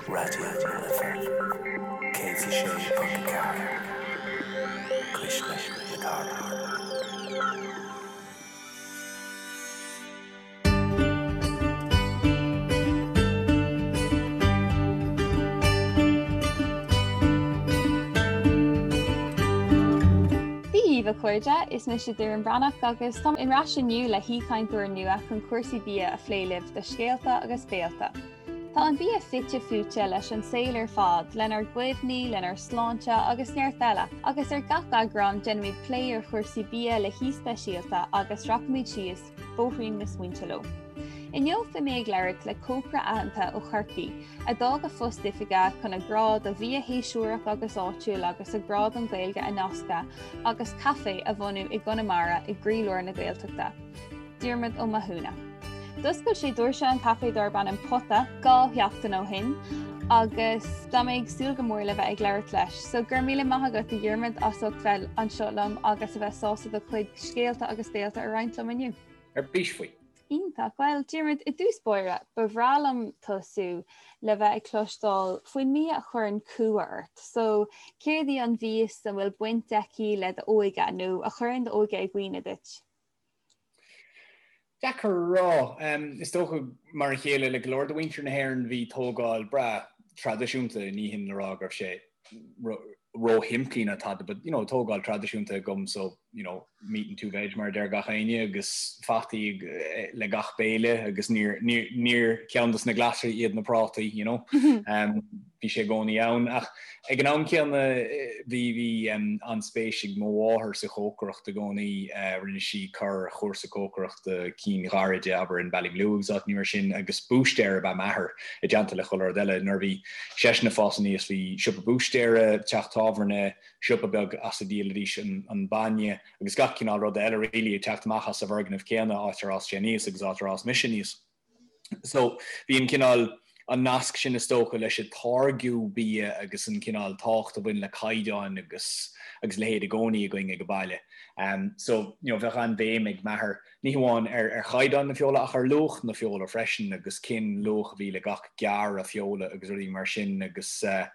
Raidió na Life 106.4, Cuisle na Cathrach. Dia dhaoibh a chairde, is mise Doireann Breathnach agus táim ar ais inniu le haoichainteoir nua chun cúrsaí bia a phlé libh do Scéalta agus Béalta. Tá an bia fite fuaite leis an saol ar fad, lenár gcuimhní, lenár sláinte agus neart eile, agus ar gach eagrán déanaimid plé ar chúrsaí bia le haoi speisialta agus rachaimid síos bóithrín na smaointe leo. Inniu beidh mé ag labhairt le cócaire aitheanta ó Chorcaigh a d'fhág a phost oifige chun a grá do bhia shéasúrach agus áitiúil agus a grá don Ghaeilge a nascadh agus caifé a bhunú i gConamara i gcroílár na Gaeltachta. Diarmuid Ó Mathúna. D'oscail sé doirse an chaifé darb ainm Pota 2 sheachtain ó shin agus tá mé ag súil go mór le bheith ag labhairt leis. So go raibh míle maith agat a Dhiarmuid as ucht bheith anseo liom agus a bheith sásta do chuid scéalta agus béalta a roinnt liom inniu. Ar bís faoi. Iontach. Bhuel, Diarmuid, i dtús báire, ba bhreá liom tosú le bheith ag cloisteáil faoin mbia a chuireann cumha ort. So, céard í an mhias a bhfuil baint aici le d'óige nó a chuireann d'óige i gcuimhne duit? Deacair a rá. Is dócha, mar a chéile le go leor de mhuintir na hÉireann, bhí tógáil breá traidisiúnta, ní hin le rá go raibh sé róshimplí ná tada, but you know, tógáil traidisiúnta agam so, you know, meat and two veg mar a deir gach éinne agus fataí le gach béile agus níor, níor, níor ceann dos na glasraí iad na prátaí, you know. Bhí sé i gcónaí ann ach ag an am céanna bhí bhí an-spéis ag mo mháthair sa chócaireacht i gcónaí. Rinne sí corr-chúrsa cócaireachta, cinn ghairide, abair, in Ballymaloe agus áiteanna mar sin agus búistéir ab ea m'athair i dteannta le chuile rud eile. Nuair a bhí seisean ag fás aníos bhí siopa búistéara, teach tábhairne, siopa beag as a dhíolaidís an bainne agus gach cineál ruda eile really ag teacht amach as an bhfoirgneamh céanna, áit ar fhás sé aníos agus áit ar fhás mise aníos. So bhí an cineál, an nasc sin is dócha leis an táirgiú bia agus an cineál tábhacht a bhain le caighdeáin agus agus a leithéid i gcónaí againn ag an baile. So you know bheadh an-bhéim ag m'athair ní hamháin ar ar chaighdeán na feola ach ar luach na feola freisin agus cén luach a bhí le gach gearradh feola agus rudaí mar sin agus eh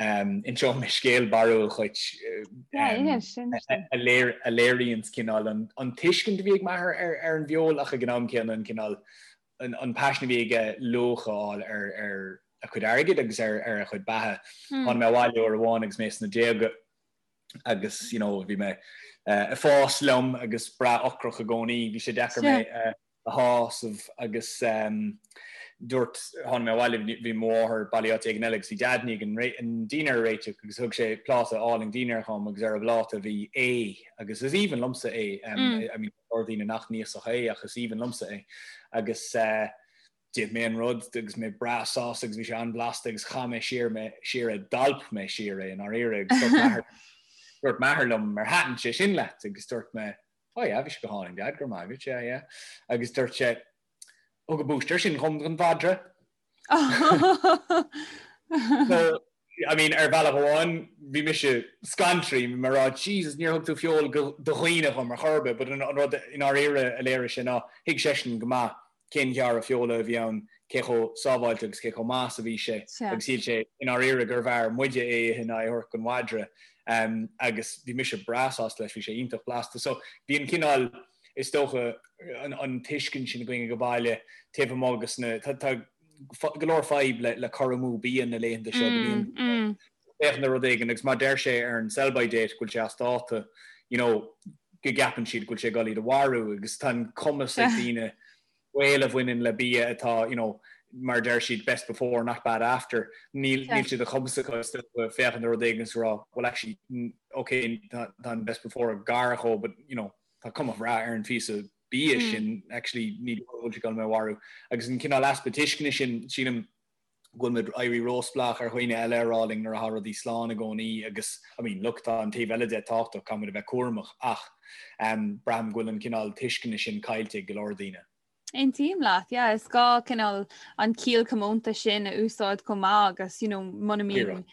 Inseoidh mé scéal barrúil dhuit a léiríonns cineál an tuiscint a bhí ag m'athair ar an bhfeoil ach ag an am céanna an cineál an paisean a bhí aige luach a fháil ar a chuid airgid agus ar a chuid beatha. Tháinig mé abhaile uair amháin agus mé sna déaga agus you know bhí mé ag fás liom agus breá ocrach i gcónaí, bhí sé deacair mé a shásamh agus dúirt, tháinig mé abhaile, bhí mo mháthair bailithe áit éigin eile agus bhí Deaid i ndiaidh an dinnéar a réiteach agus thug sé pláta álainn dinnéir dhom agus ar an bpláta bhí ae agus is aoibhinn liomsa ae, I mean tá go leor daoine nach n-íosfadh ae ach is aoibhinn liomsa é agus d'ith mé an rud agus mé breá sásta agus bhí sé an-bhlasta agus chaith mé siar mé siar é, d'alp mé siar é i ndáiríre agus dúirt m'athair dúirt m'athair liom ar thaitin sé sin leat agus dúirt mé Oh yeah, bhí sé go hálainn, Dad, go raibh maith agat, yeah, yeah. Agus dúirt sé, Thug an búistéir sin dhom don mhadra. So, I mean, ar bhealach amháin, bhí mise scanraithe, bhí mé ag rá, Jesus, níor thug tú feoil do dhaoine dhom ar chor ar bith, but an rud i ndáiríre a léirigh sé ná, thuig seisean go maith cén ghearradh feola a bhí ann, cé chomh sábháilte agus cé chomh maith is a bhí sé, agus shíl sé i ndáiríre gurbh fhearr muide é a ithe ná é a thabhairt don mhadra. Agus bhí mise breá sásta leis, bhí sé iontach blasta. So bhí an cineál, is dócha, an tuiscint sin againn ag an baile taobh amuigh agus na, tá go leor fadhb le cur amú bia na laethanta seo, go mbíonn féachaint ar rud éigin agus má deir sé ar an sell by date go bhfuil sé as dáta, you know, go gceapann siad go bhfuil sé ag dul iad a mharú agus tá an cumas ag daoine baol a bhaineann le bia atá, you know, mar a deir siad best before not bad after, níl níl sé de chumas acu is dócha féachaint ar rud éigin agus rá well actually okay tá an best before gar dhó but you know tá cuma bhreá ar an phíosa bia sin actually ní bhfuil sé ag dul mé a mharú agus an cineál easpa tuisceana sin sílim go bhfuil muid ag éirí róspleách ar dhaoine eile a rá linn nuair atá rudaí slán i gcónaí agus, I mean, look, tá an taobh eile de tábhachtach, caithfidh muid a bheith cúramach ach braithim go bhfuil an cineál tuisceana sin caillte ag go leor daoine. Aontaím leat, yeah, is gá cineál an ciall comónta sin a úsáid chomh maith agus, you know, muna mbíonn,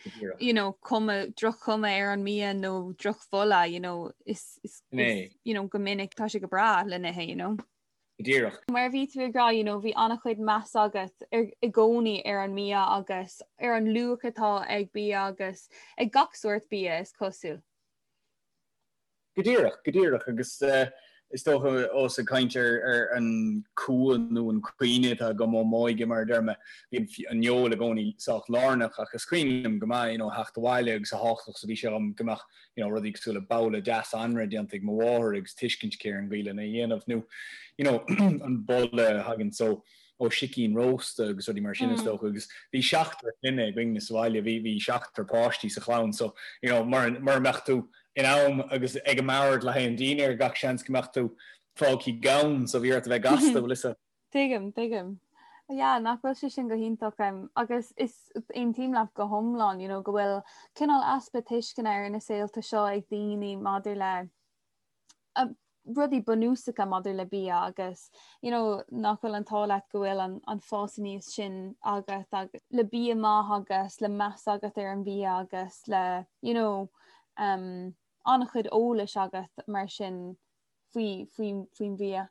you know, cuma, droch-chuma ar an mbia nó drochbholadh, you know, is, is, is, you know, go minic tá sé go breá le n-ithe, you know. Go díreach. Mar a bhí tú ag rá, you know, bhí an-chuid meas agat ar, i gcónaí ar an mbia agus ar an luach atá ag bia agus ag gach sórt bia, is cosúil. Go díreach, go díreach. Agus is dócha, ós ag caint ar an cumha nó an cuimhne atá agam ó m'óige, mar a deir mé, bhí an fheoil i gcónaí sách lárnach ach is cuimhin liom go maith, you know, theacht abhaile agus a thábhachtach is a bhí sé dhom go mbeadh, you know, rudaí cosúil le babhla deas anraith déanta ag mo mháthair agus tuiscint aici ar an gcaoi lena dhéanamh nó, you know, an boladh a thagann so ó sicín rósta agus rudaí mar sin is dócha agus bhí seachtar clainne againne sa bhaile, bhí, bhí seachtar páistí sa chlann so, you know, mura, mura mbeadh tú in am agus ag an mbord le haghaidh an dinnéir gach seans go mbeadh tú fágtha gann so bhí ort a bheith gasta, bhfuil fhios agat. Tuigim, tuigim. Yeah, nach bhfuil sé sin go hiontach agus is aontaím leat go hiomlán, you know, go bhfuil cineál easpa tuisceana ar na saolta seo ag daoine maidir le rudaí bunúsacha maidir le bia agus you know, nach bhfuil an t-ádh leat go bhfuil an, an fás aníos sin agat agus le bia maith agus le meas agat ar an bhia agus le you know, um, an-chuid eolais agat mar sin faoi, faoi, faoin bhia.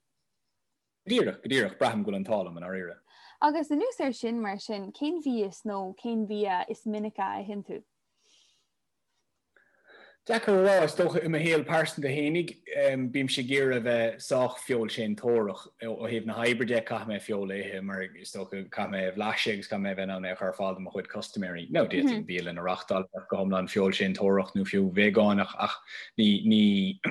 Go díreach, go díreach, braithim go bhfuil an t-ádh liom i ndáiríre. Agus anuas air sin, mar sin, cén mhias nó cén bia is minice a itheann tú? Deacair a rá, is dócha i mo shaol pearsanta fhéinig, bímse ag iarraidh a bheith sách feoilséantóireach. Ó thaobh na hoibre de, caithfidh mé feoil a ithe mar is dócha caithfidh mé é a bhlaiseadh agus caithfidh mé a bheith in ann é a chur ar fáil do mo chuid custaiméirí. Now d'fhéadfainn bialann a reachtáil a bheadh go hiomlán feoilséantóireach nó fiú veigeánach ach ní, ní,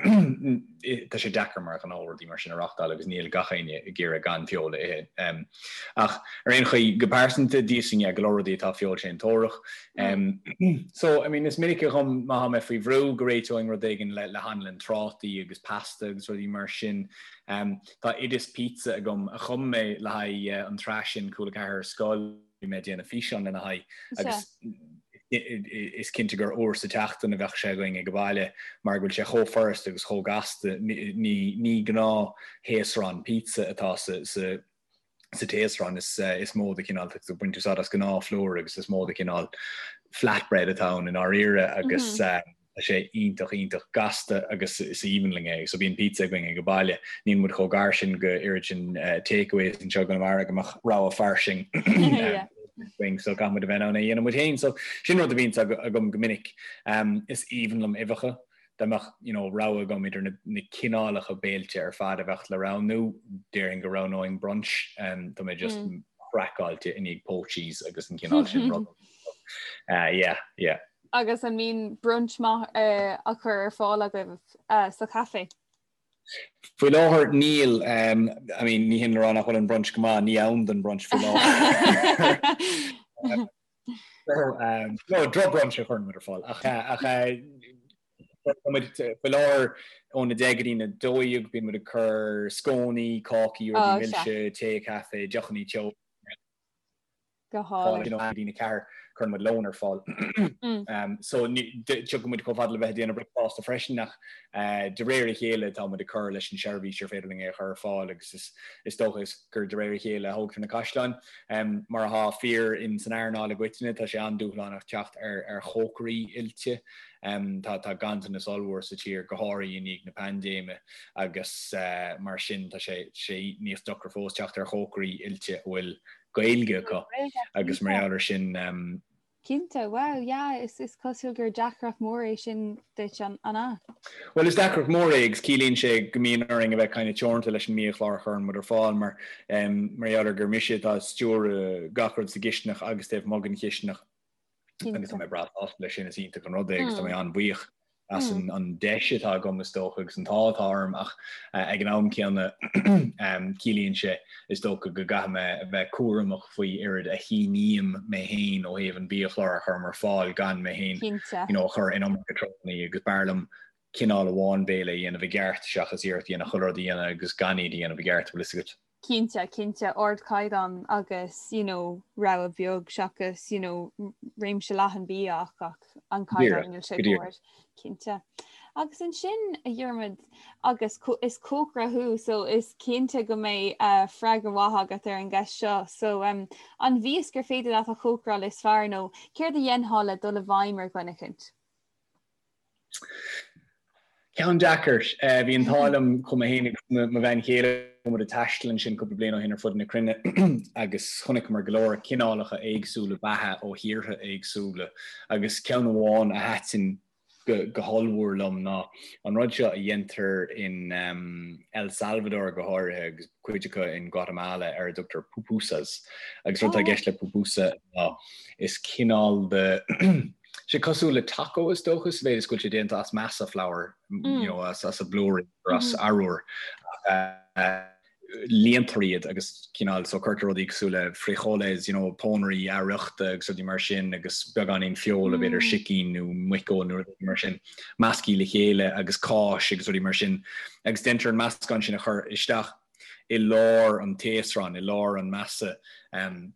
tá sé deacair mar ghnó rudaí mar sin a reachtáil agus níl gach éinne ag iarraidh gan feoil a ithe. Ach ar aon chaoi, go pearsanta, d'íosfainn yeah, go leor rudaí atá feoilséantóireach. So, I mean, is minice dhom má tá mé faoi bhrú go réiteoinn rud éigin le le hanlann trátaí agus pasta agus rudaí mar sin. Tá oideas pizza agam a chum mé le haghaidh an tsraith sin Cúla 4 ar Scoil. Bhí mé ag déanamh físeán lena haghaidh agus is cinnte gur uair sa tseachtain a bheadh sé againn ag an bhaile mar go bhfuil sé chomh furasta agus chomh gasta. Ní gnáth-thaosrán pizza atá sa sa taosrán, is mó de chineál, tá tú ag baint úsáid as gnáth-phlúr agus is mó de chineál flatbread atá ann i ndáiríre agus Tá sé iontach, iontach gasta agus is aoibhinn linn é. So bíonn pizza againn ag an baile. Níl muid chomh gar sin go oiread sin takeaways anseo i gConamara go mbeadh rogha fairsing againn. So caithfidh muid a bheith in ann é a dhéanamh muid féin. So sin rud a bhíonns agam go minic. Is aoibhinn liom uibheacha. Dá mbeadh you know rogha agam idir na na cineálacha béilte ar fad a bheadh le roghnú, déarfainn go roghnóinn brunch. Tá mé just craiceáilte i ndiaidh poachies agus an cineál sin rud. Yeah, yeah. Agus an mbíonn brunch maith á chur ar fáil agaibh sa chaifé? Faoi láthair níl. I mean ní hin le rá nach bhfuil an brunch go maith, ní am don brunch faoi láthair. No, droch-brunch a chuireann muid ar fáil ach ach faoi láthair óna 10 go dtí na 12 bíonn muid ag cur scónaí, cácaí, rudaí milse, tae, caife, deochanna teo. Go hálainn. Go dtí na 4, cuireann muid lón ar fáil. So tiocfaidh muid chomh fada le bheith ag déanamh bricfeasta freisin ach de réir a chéile tá muid ag cur leis an seirbhís ar féidir linn é a chur ar fáil agus is dócha is gur de réir a chéile a thógtar na caisleáin. Mar atá fíor in san earnáil i gcoitinne tá sé an-dúshlánach teacht ar ar chócairí oilte. Tá tá ganntanas ollmhór sa tír go háirithe i ndiaidh na paindéime agus mar sin tá sé sé níos deacra fós teacht ar chócairí oilte a bhfuil Gaeilge acu agus mar gheall ar sin. Cinnte, wow, yeah, is is cosúil gur deacracht mór é sin duit, an ea? Bhuel, is deacracht mór é agus ciallaíonn sé go mbíonn orainn a bheith kind of teoranta leis an mbiachlár a chuireann muid ar fáil mar mar gheall ar gur mise atá ag stiúradh gach rud sa gcistineach agus taobh amuigh den chistineach. Agus tá mé breá sásta leis sin, is iontach an rud é agus tá mé an-bhuíoch as an deis atá agam is dócha agus an t-ádh atá orm ach ag an am céanna ciallaíonn sé is dócha go gcaithfidh mé a bheith cúramach faoi oiread a shíním mé féin ó thaobh an bhiachlár a chuirim ar fáil gan mé féin you know a chur in iomarca treorannaí agus b'fhearr liom cineál amháin béile a dhéanamh i gceart seachas iarracht a dhéanamh chuile rud a dhéanamh agus gan iad a dhéanamh i gceart, bhfuil fhios agat. Cinnte, cinnte, ardchaighdeán agus you know rogha beag seachas you know réimse leathan bia ach ach an caighdeán níl sé chomh hard. Cinnte. Agus ansin a Dhiarmuid agus is cócaire thú so is cinnte go mbeidh uh, freagra mhaith agat ar an gceist seo. So um, an mhias gur féidir leat a chócaráil is fearr nó céard a dhéanfá le dul i bhfeidhm ar dhuine eicínt? Ceann deacair. Bhí an t-ádh liom chuaigh mé féin agus mo bhean chéile. Chuaigh muid ag taisteal ansin cúpla bliain ó shin ar fud na cruinne agus chonaiceamar go leor cineálacha éagsúla beatha ó thíortha éagsúla agus ceann amháin a thaitin go hollmhór liom ná an rud seo a dhéantar in El Salvador go háirithe agus cuid acu in Guatemala ar a dtugtar pupusas. Agus rud atá i gceist le pupusa ná is cineál de sé cosúil le taco is dócha sa mhéid is go bhfuil sé déanta as masa flour, you know, as as blúirí as arúr. Líontar iad agus cineál so cuirtear rudaí cosúil le frijoles, you know, pónairí athfhriochta agus rudaí mar sin agus beagáinín feola, b'fhéidir sicín nó muiceoil nó rudaí mar sin, measctha le chéile agus cáis agus rudaí mar sin. Agus déantar an meascán sin a chur isteach i lár an taosráin, i lár an masa. Um,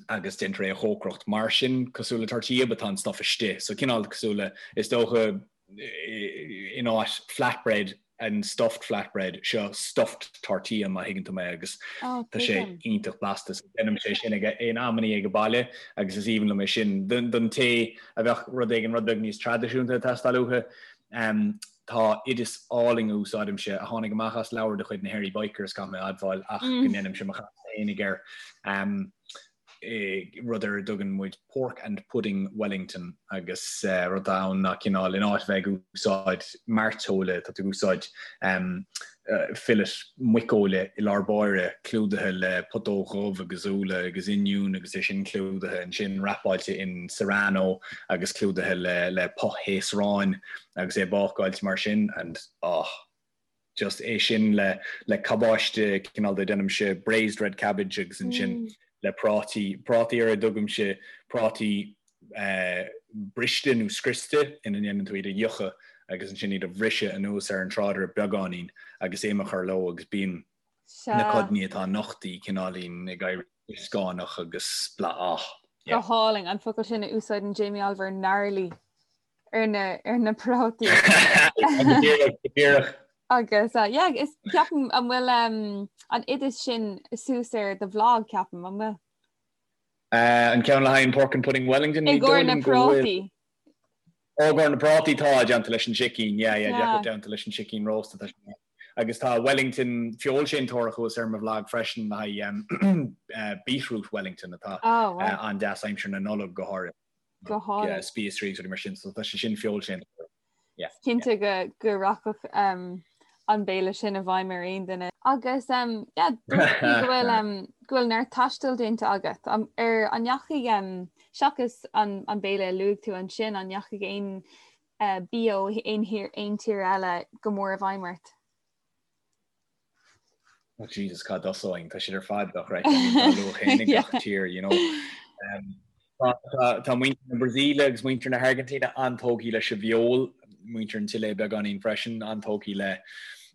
agus déantar é a chócaireacht mar sin, cosúil le tortilla, but tá an stuff istigh. So cineál cosúil le, is dócha, in áit flatbread and stuffed flatbread, seo stuffed tortilla má thuigeann tú mé agus oh, tá sé iontach blasta. So déanaimse é sin ag in amannaí ag an baile agus is aoibhinn liom é sin. Don té a bheadh rud éigin rud beag níos traidisiúnta ag teastáil uathu, um, Tá oideas álainn a úsáidimse, a tháinig amach as leabhar de chuid na Hairy Bikers, caithfidh mé a admháil, ach go ndéanaimse mo chás fhéinig air, rud ar a dtugann muid Pork and Pudding Wellington agus rud atá ann ná cineál, in áit a bheith ag úsáid mairteola, tá tú ag úsáid fillet muiceola i lár báire, clúdaithe le putóg dhubh agus úlla agus oinniún agus é sin clúdaithe ansin, wrapáilte in serrano agus clúdaithe le le puth-thaosrán. agus é bácáilte mar sin and oh just é sin le le cabáiste cineál de déanaimse braised red cabbage agus ansin mm. le prátaí prátaí ar a dtugaimse prátaí eh, briste nó scriosta ina ndéanann tú iad a fhiuchadh agus ansin iad a bhriseadh anuas ar an tráidire beagáinín agus im a chur leo agus bíonn na codanna atá nochtaí cineáilín ag éirí scáineach agus bla ah. Go hálainn an focal sin a úsáideann Jamie Oliver gnarly. ar na ar na prátaí. Díreach. Agus uh, yeah, is ceapaim an bhfuil um, an oideas sin suas ar do bhlag ceapaim an bhfuil? Uh, an ceann le haghaidh Pork and Pudding Wellington I gcomhair na prátaí. Ó i gcomhair na prátaí tá déanta leis an sicín, yeah, yeah, yeah. déanta leis an sicín rósta tá Agus tá Wellington feoilséantóireacht thuas ar mo bhlag freisin le haghaidh um, uh, beetroot Wellington atá oh, wow. uh, an-deas aimsir na Nollag go háirithe. Go hálainn. Spíosraí agus rudaí mar sin, so tá sé sin feoilséantóireacht. Yeah. Cinnte go go rachadh um, an béile sin i bhfeidhm ar aon duine. Agus um, yeah, dúirt tú go bhfuil um, go bhfuil neart taistil déanta agat. Um, ar an ndeachaigh um, seachas an, an béile a luaigh tú ansin, an ndeachaigh aon uh, bia ó aon thír aon tír eile go mór i bhfeidhm ort? Oh Jesus, cá dtosóinn, tá siad ar fad dochreidte, I mean, tá luach féin ag gach tír, you know. Um, tá, tá, tá muintir na Brasaíle agus muintir na hAirgintíne an-tógtha leis an bhfeoil, muintir an tSile beagáinín freisin, an-tógtha le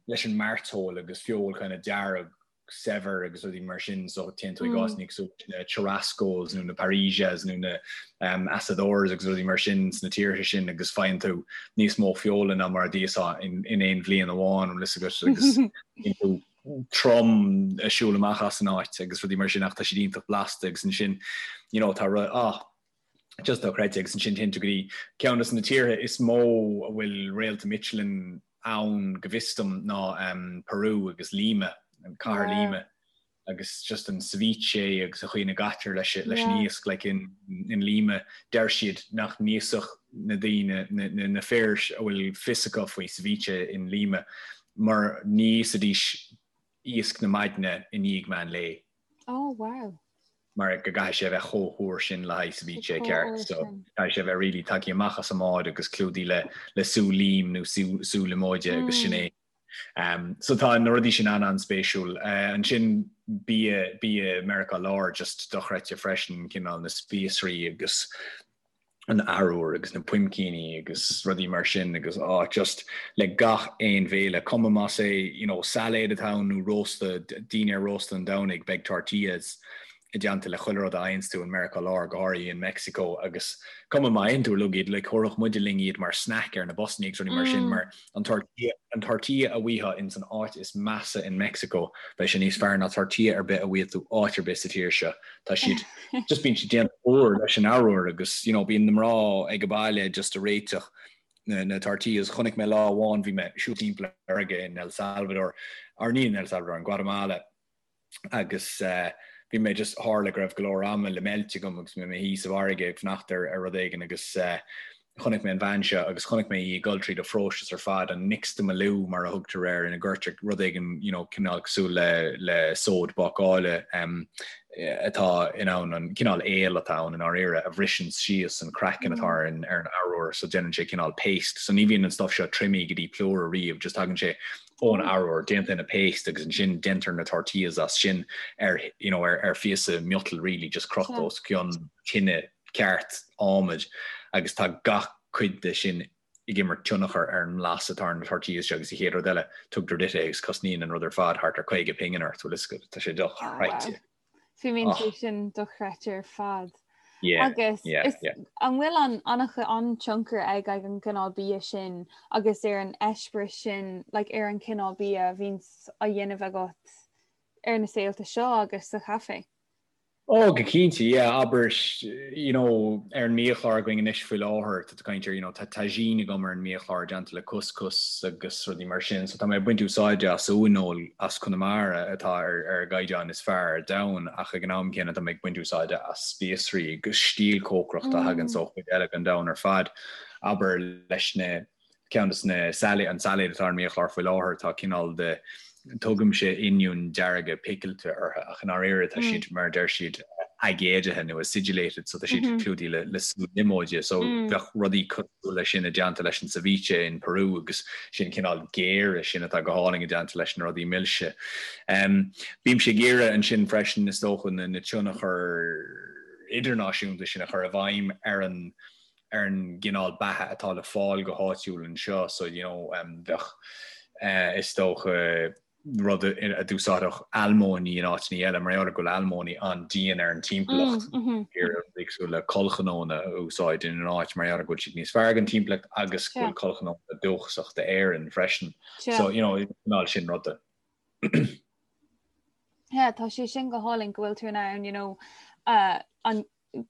leis an mairteoil agus feoil kind of dearg saibhir agus rudaí mar sin, so téann tú i gcás mm. cosúil na churrascos nó na parrillas nó na um, asadores agus rudaí mar sin sna tíortha sin agus faigheann tú níos mó feola ná mar a d'íosfá in, in aon bhliain amháin an bhfuil a fhios agat agus bíonn tú trom ag siúl amach as an áit agus rudaí mar sin ach tá siad iontach blasta agus ansin you know, tá ru ah, just dochreidte agus ansin téann tú go dtí ceann de na tíortha is mó a bhfuil réalta Michelin ann go bhfios dom ná um, Peru agus Lima, an cathair Lima. agus just an ceviche agus an chaoi ina gcaitear leis leis an iasc like in in Lima deir siad nach n-íosfadh na daoine na na na fir a bhfuil fios acu faoi ceviche in Lima mar ní íosfaidís iasc na maidne i ndiaidh meán lae. Oh wow. mar go gcaithfidh sé a bheith chomh húr sin le haghaidh ceviche ceart so caithfidh sé a bheith really tagtha amach as an mbád agus clúdaithe le le sú lím nó sú sú liomóide agus sin é. Um, so tá na rudaí sin an-an-spéisiúil. Uh, ansin bia bia Meiriceá Láir just dochreidte freisin cineál na spíosraí agus an arbhar agus na puimcíní agus rudaí mar sin agus á just le gach aon bhéile, cuma más é you know, sailéad atá ann nó rósta, dinnéar rósta an Domhnaigh, beidh tortillas i dteannta le chuile rud a fhaigheanns tú in Meiriceá Láir, go háirithe in Meicsiceo agus cuma má itheann tú uilig iad, like thabharfadh muide linn iad mar snack ar na busanna agus rudaí mar sin mar an tortilla, an tortilla a bhfaighfeá ins an áit is measa in Meicsiceo, beidh sé níos fearr ná tortilla ar bith a bhfaighidh tú áit ar bith sa tír seo. Tá siad, just bíonn siad déanta úr leis an arbhar agus, you know, bíonn na mná ag an baile just a réiteach. na tortillas. Chonaic mé lá amháin, bhí mé ag siúl timpeall ar fharraige in El Salvador, or ní in El Salvador, in Guatemala, agus bhí mé just, tharla go raibh go leor ama le meilt agam agus bhí mé i mo shuí sa bhfarraige ag fanacht ar ar rud éigin agus chonaic mé an bhean seo agus chonaic mé í ag dul tríd an phróiseas ar fad, an nixtamalú mar a thugtar air, ina gcuirtear rud éigin you know cineál cosúil le le sóid bácála atá in ann an cineál aol atá ann i ndáiríre a bhriseann síos an craiceann atá ar an ar an arbhar so déanann sé cineál paste so ní bhíonn an stuff seo triomaithe go dtí plúr ariamh just tagann sé ón arbhar, déanta ina paste agus ansin déantar na tortillas as sin ar you know ar ar phíosa miotail really just crochta os cionn tine ceart adhmaid agus tá gach cuid de sin ag imirt tionchar ar an mblas atá ar na tortillas seo agus an chéad rud eile tugtar duit é agus cosnaíonn an rud ar fad thart ar 50 pingin ort, bhfuil a fhios agat, tá sé dochreidte. Fuaimníonn sé sin dochreidte ar fad. Agus an bhfuil an an-tionchar ag ag an gcineál bia sin agus ar an eispéireas sin like, ar an cineál bia a bhíonns á dhéanamh agat ar na saolta seo agus sa chaifé? Oh, go cinnte, yeah, abair, you know, ar an mbiachlár againn anois faoi láthair, tá tú ag caint ar, you know, tá tagine agam ar an mbiachlár déanta le couscous agus rudaí mar sin, so tá mé ag baint úsáide as uaineoil as Conamara atá ar ar an gcaighdeán is fearr ar domhan ach ag an am céanna tá mé ag baint úsáide as spíosraí agus stíl cócaireachta a thagann ó chuid eile den domhan ar fad. Abair leis na ceann de na sailéid, an sailéad atá ar an mbiachlár faoi láthair, tá cineál de, tugaimse oinniúin dearga picilte orthu ach i ndáiríre tá siad, mar a deir siad, aigéadaithe nó acidulated so tá siad clúdaithe le le sú liomóide so bheadh rudaí cosúil leis sin i dteannta leis an ceviche in Peru agus sin cineál géire sin atá go hálainn i dteannta leis na rudaí milse. Bímse ag iarraidh ansin freisin is dócha na na tionchair idirnáisiúnta sin a chur i bhfeidhm ar an ar an gcineál beatha atá le fáil go háitiúil anseo so you know bheadh is dócha rud a d'úsáidfeadh almóinní in áiteanna eile mar gheall ar go bhfuil almóinní an-dian ar an timpeallacht rudaí cosúil le collchnónna a úsáid ina n-áit mar gheall ar go bhfuil siad níos fearr don timpeallacht agus go bhfuil collchnónna dúchasach d'Éirinn freisin. So you know cineál sin ruda. Yeah, tá sé sin go hálainn go bhfuil tú in ann you know, uh, an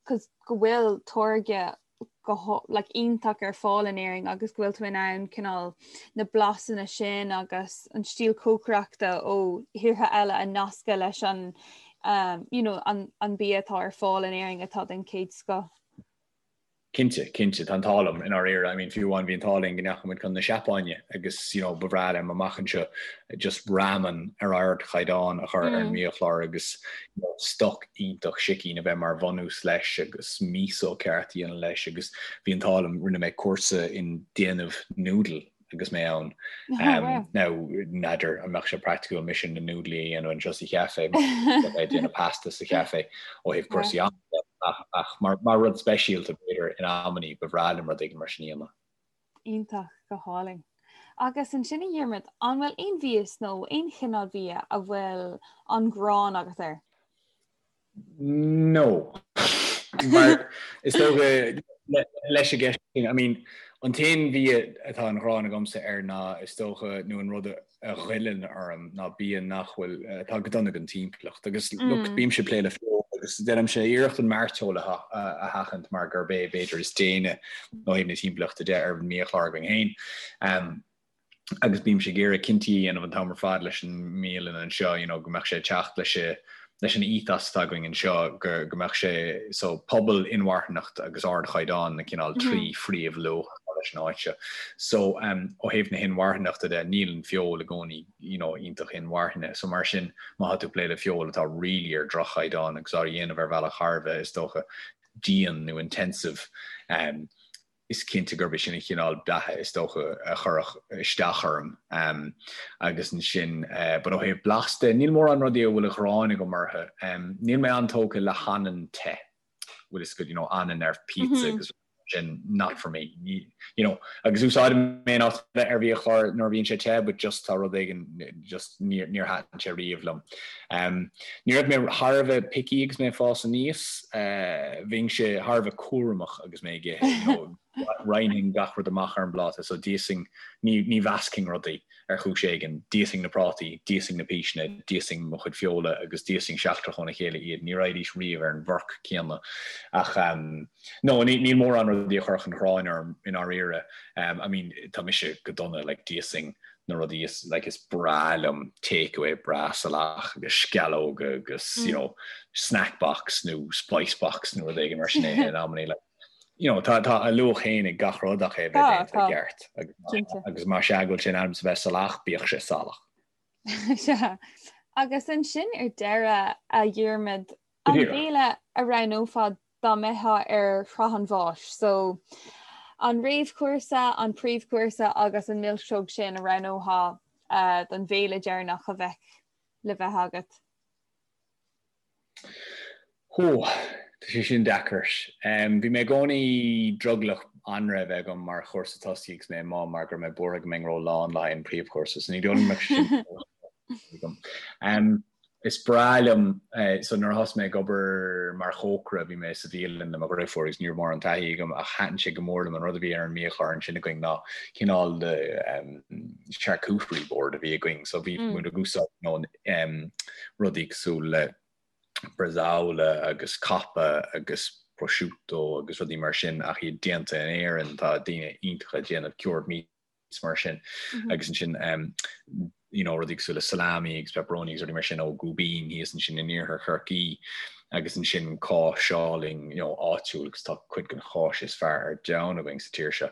cos go bhfuil táirge go like, iontach ar fáil in Éirinn agus go bhfuil tú in ann cineál na blasanna sin agus an stíl cócaireachta ó thíortha eile a nascadh leis an um, you know, an, an bia atá ar fáil in Éirinn atá den chéad scoth. Cinnte, cinnte, tá an t-ádh liom i ndáiríre. I mean, fiú amháin bhí an t-ádh linn go ndeachaigh muid chun na Seapáine agus, you know, ba bhreá liom amach anseo just ramen ar ardchaighdeán a chur ar an mbiachlár agus, you know, stoc iontach sicín a bheith mar bhunús leis agus miso ceart a dhéanamh leis agus bhí an t-ádh liom, rinne mé cúrsa in déanamh noodle agus mé ann. Now, n'fheadar an mbeadh sé praiticiúil mise na núdlaí a dhéanamh anseo sa chaife, mar bheith ag déanamh pasta sa chaife ó thaobh cúrsaí ama de, ach mar rud speisialta b'fhéidir in amannaí ba bhreá liom rud éigin mar sin a dhéanamh. Iontach, go hálainn. Agus ansin a Dhiarmaid, an bhfuil aon mhias nó aon chineál bia a bhfuil an ghráin agat air? No. Mar is dócha leis an gceist sin, I mean, an t-aon bhia atá an ghráin agamsa air ná is dócha nó an rud a ghoilleann orm ná bia nach bhfuil, atá go dona don timpeallacht. Agus look, bímse ag plé le feoil agus déanaimse iarracht an mairteoil a sheachaint mar gurb é b'fhéidir is déine ó thaobh na timpeallachta de ar an mbiachlár againn féin. agus bímse ag iarraidh cinntí a dhéanamh an t-am ar fad leis an mbialann anseo, you know, go mbeadh sé ag teacht leis leis an ethos atá againn anseo, go go mbeadh sé, so pobal, inmharthanacht agus ardchaighdeán na cineál trí phríomhluach atá leis an áit seo. So um, ó thaobh na hinmharthanachta de, níl an feoil i gcónaí, you know, iontach inmharthana. So mar sin, má tá tú ag plé le feoil atá really ar droch-chaighdeán agus á dhéanamh ar bhealach thar a bheith, is dócha, dian nó intensive, um, is cinnte gurb é sin an chineál beatha is dócha a chuirfeadh isteach orm. Agus ansin, but ó thaobh blas de, níl mórán rudaí a bhfuil an ghráin agam orthu. Níl mé an-tógtha le hanann te, bhfuil fhios agat, you know, anann ar pizza agus sin, not for me. You know, agus úsáidim é in áit ar bhiachlár nuair a bhíonn sé te, but just tá rud éigin, just níor thaitin sé riamh liom. Ní raibh mé thar a bheith picky agus mé ag fás aníos, bhínnse thar a bheith cúramach agus mé ag ithe, you know. Roinnfinn gach rud amach ar an bpláta, so d'íosfainn, ní ní mheascfainn rudaí ar chúis éigin, d'íosfainn na prátaí, d'íosfainn na píseanna, d'íosfainn mo chuid feola agus d'íosfainn seachtrach óna chéile iad, ní raghaidís riamh ar an bhforc céanna. Ach no, ní níl mórán rudaí a chuirfeadh an ghráin orm i ndáiríre. I mean, tá mise go dona, like d'íosfainn na rudaí is like is breá liom takeaway breá salach agus sceallóga agus you know snack box nó spice box nó rud éigin mar sin é in amannaí like you know tá tá a luach féin ag gach rud ach é bheith déanta i gceart agus agus más ea go bhfuil sé in ainm is a bheith salach bíodh sé salach. Sea. Agus ansin ar deireadh a Dhiarmaid an béile a roghnófá dá mbeifeá ar shraith an bháis. So, an réamhchúrsa, an príomhchúrsa agus an milseog sin a roghnófá don bhéile deireanach a bheadh le bheith agat? Hó, tá sé sin deacair. Bhí mé i gcónaí drogallach anraith a bheith agam mar chúrsa tosaigh agus mé i mbá mar go raibh mé buartha go mbeinn ró-lán le haghaidh an príomhchúrsa, so ní dóigh liom go mbeadh sé sin agam. Is breá liom, so nuair a thosaigh mé ag obair mar chócaire bhí mé sa bhialann le mo dhriofúr agus ní raibh mórán taithí agam ach thaitin sé go mór liom an rud a bhí ar an mbiachlár ansin againn ná cineál de charcuterie board a bhí againn so bhí muid ag úsáid you know rudaí cosúil le bresaola agus coppa agus prosciutto agus rudaí mar sin ach iad déanta in Éirinn tá daoine iontacha ag déanamh cured meat meats mar sin agus ansin you know rudaí cosúil le salami agus pepperoni agus rudaí mar sin ó Gúibín thíos ansin in iarthar Chorcaí agus ansin cáis álainn you know áitiúil agus tá cuid den cháis is fearr ar domhan againn sa tír seo.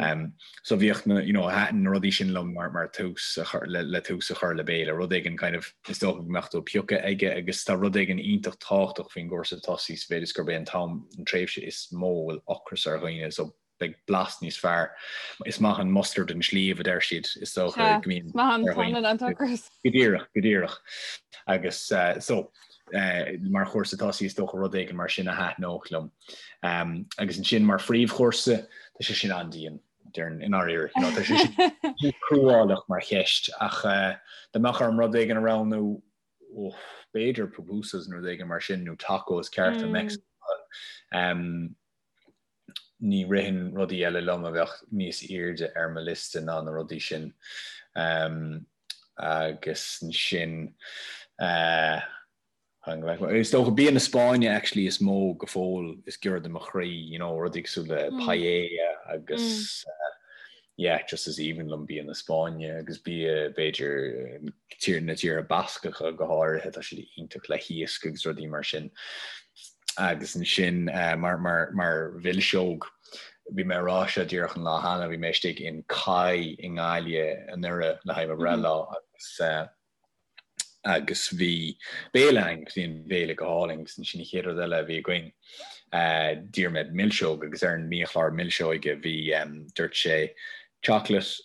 Um, so bhíodh na you know thaitin na rudaí sin liom mar mar tús a chur le, le tús a chur le béile, rud éigin kind of is dócha go mbeadh tú ag piocadh aige agus tá rud éigin iontach tábhachtach faoin gcúrsa tosaigh sa mhéid is gurb é an t-am an tréimhse is mó a bhfuil ocras ar dhaoine so beidh blas níos fearr. Is maith an mustard an sliabh, a deir siad, is dócha go mbíonn. Is maith an t-anlann an t-ocras. Go díreach, go díreach. Agus so, mar chúrsa tosaigh is dócha rud éigin mar sin a thaitneodh liom. Agus ansin mar phríomhchúrsa, tá sé sin an-dian, déarfainn, i ndáiríre. You know, tá sé sin cruálach mar cheist, ach dá mbeadh orm rud éigin a roghnú, b'fhéidir pupusas nó rud éigin mar sin, nó tacos cearta Meicsiceacha. Ní ritheann rudaí eile liom a bheadh níos airde ar mo liosta ná na rudaí sin. Agus ansin, is dócha bia na Spáinne actually is mó go fóill is giorra do mo chroí, you know, rudaí cosúil le paella agus yeah, just is aoibhinn liom bia na Spáinne agus bia b'fhéidir tír na tíortha Bascacha go háirithe, tá siad iontach le hiasc agus rudaí mar sin. Agus ansin mar mar mar mhilseog, bhí mé ag rá seo díreach an lá cheana, bhí mé istigh in Kai i nGaillimh anuraidh le haghaidh mo bhreithlá agus agus bhí béile ann agus bhí an béile go hálainn agus ansin an chéad rud eile a bhí againn d'iarr mé milseog agus ar an mbiachlár milseoige bhí dúirt sé chocolate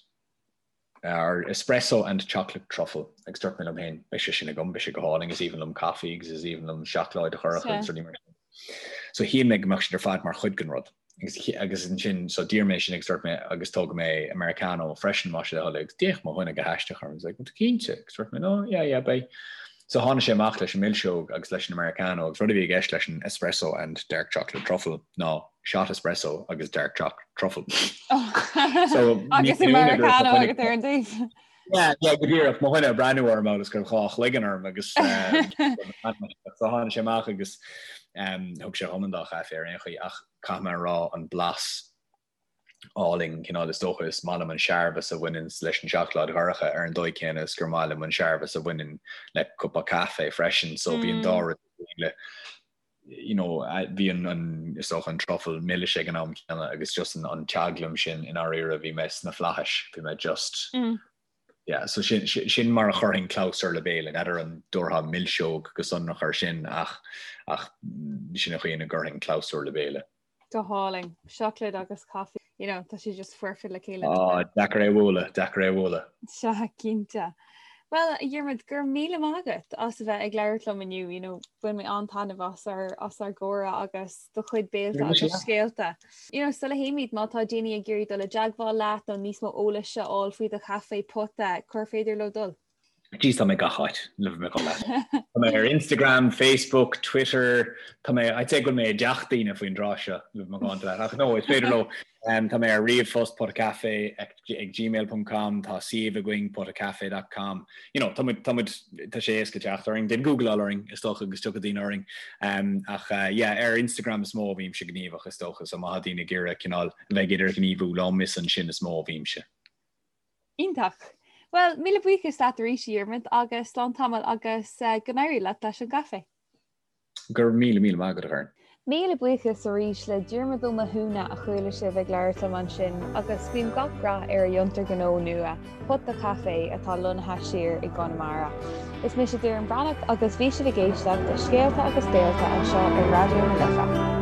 or espresso and chocolate truffle agus dúirt mé liom féin beidh sé sin agam, beidh sé go hálainn, is aoibhinn liom caife agus is aoibhinn liom seacláid dhorcha agus rudaí mar sin. So shíl mé go mbeadh siad ar fad mar chuid den rud. Agus agus ansin so d'iarr mé sin agus dúirt mé agus tógfaidh mé Americano freisin más é do thoil é agus d'fhéach mo dhuine go haisteach orm. He's like, tú cinnte? Agus dúirt mé no, yeah, yeah, beidh. So tháinig sé amach leis an milseog agus leis an Americano agus rud a bhí i gceist leis an espresso and dark chocolate truffle ná shot espresso agus dark chocolate truffle. So agus Americano agat ar an dtaobh. Yeah, yeah, go díreach mo dhuine ag breathnú orm agus go raibh dhá chloigeann orm agus so tháinig sé amach agus thug sé dhom an dá chaife ar aon chaoi ach caithfidh mé a rá an blas álainn cineál is dócha is maith liom an searbhas a bhaineann leis an seacláid dhorcha ar an dóigh céanna is gur maith liom an searbhas a bhaineann le cupa caife freisin so bhí an dá rud le you know, bhí an, an, is dócha an truffle milis ag an am céanna agus just an, an teaglaim sin i ndáiríre bhí mé sna flaithis, bhí mé just, mm. yeah, so sin, sin mar a chuirfinn clabhsúr le béile, n'fheadar an dtabharfá milseog go sonrach ar sin ach, ach sin an chaoi ina gcuirfinn clabhsúr le béile. Go hálainn. Seacláid agus caife, you know, tá sé just foirfe le chéile. Á, deacair é a bhualadh, deacair é a bhualadh. Sea, cinnte. Bhuel, a Dhiarmaid, go raibh míle maith agat as a bheith ag labhairt liom inniu, you know, bhain mé an-taitneamh as ár, as ár gcomhrá agus do chuid béilte agus scéalta. You know, sula théimid, má tá daoine ag iarraidh dul i dteagmháil leat nó níos mó eolais a fháil faoi do chaifé pota, cár féidir leo dul? Jeez, tá mé gach áit, le bheith macánta leat. Tá mé ar Instagram, Facebook, Twitter, tá mé, I'd say go bhfuil mé i dteach daoine faoin dtráth seo, le bheith macánta leat. Ach no, is féidir leo. Tá mé ar ríomhphost potacafe ag gmail ponc com, tá suíomh againn potacafe dot com. You know, tá muid, tá muid, tá sé éasca teacht orainn. Déan googleáil orainn, is dócha, agus tiocfaidh daoine orainn. Ach yeah, ar Instagram is mó a bhímse gníomhach, is dócha, so má tá daoine ag iarraidh cineál a bheith ag idirghníomhú liom, is ansin is mó a bhímse. Iontach. Bhuel, míle buíochas leat arís, a Dhiarmuid, agus slán tamall agus go n-éirí leat leis an gcaifé. Go raibh míle míle maith agat, a Dhoireann. Míle buíochas arís le Diarmuid Ó Mathúna a chuala sibh ag labhairt liom ansin agus guím gach rath ar a fhiontar gnó nua, Pota Caife, atá lonnaithe siar i gConamara. Is mise Doireann Breathnach agus bhí sibh ag éisteacht le Scéalta agus Béalta anseo ar Raidió na Life.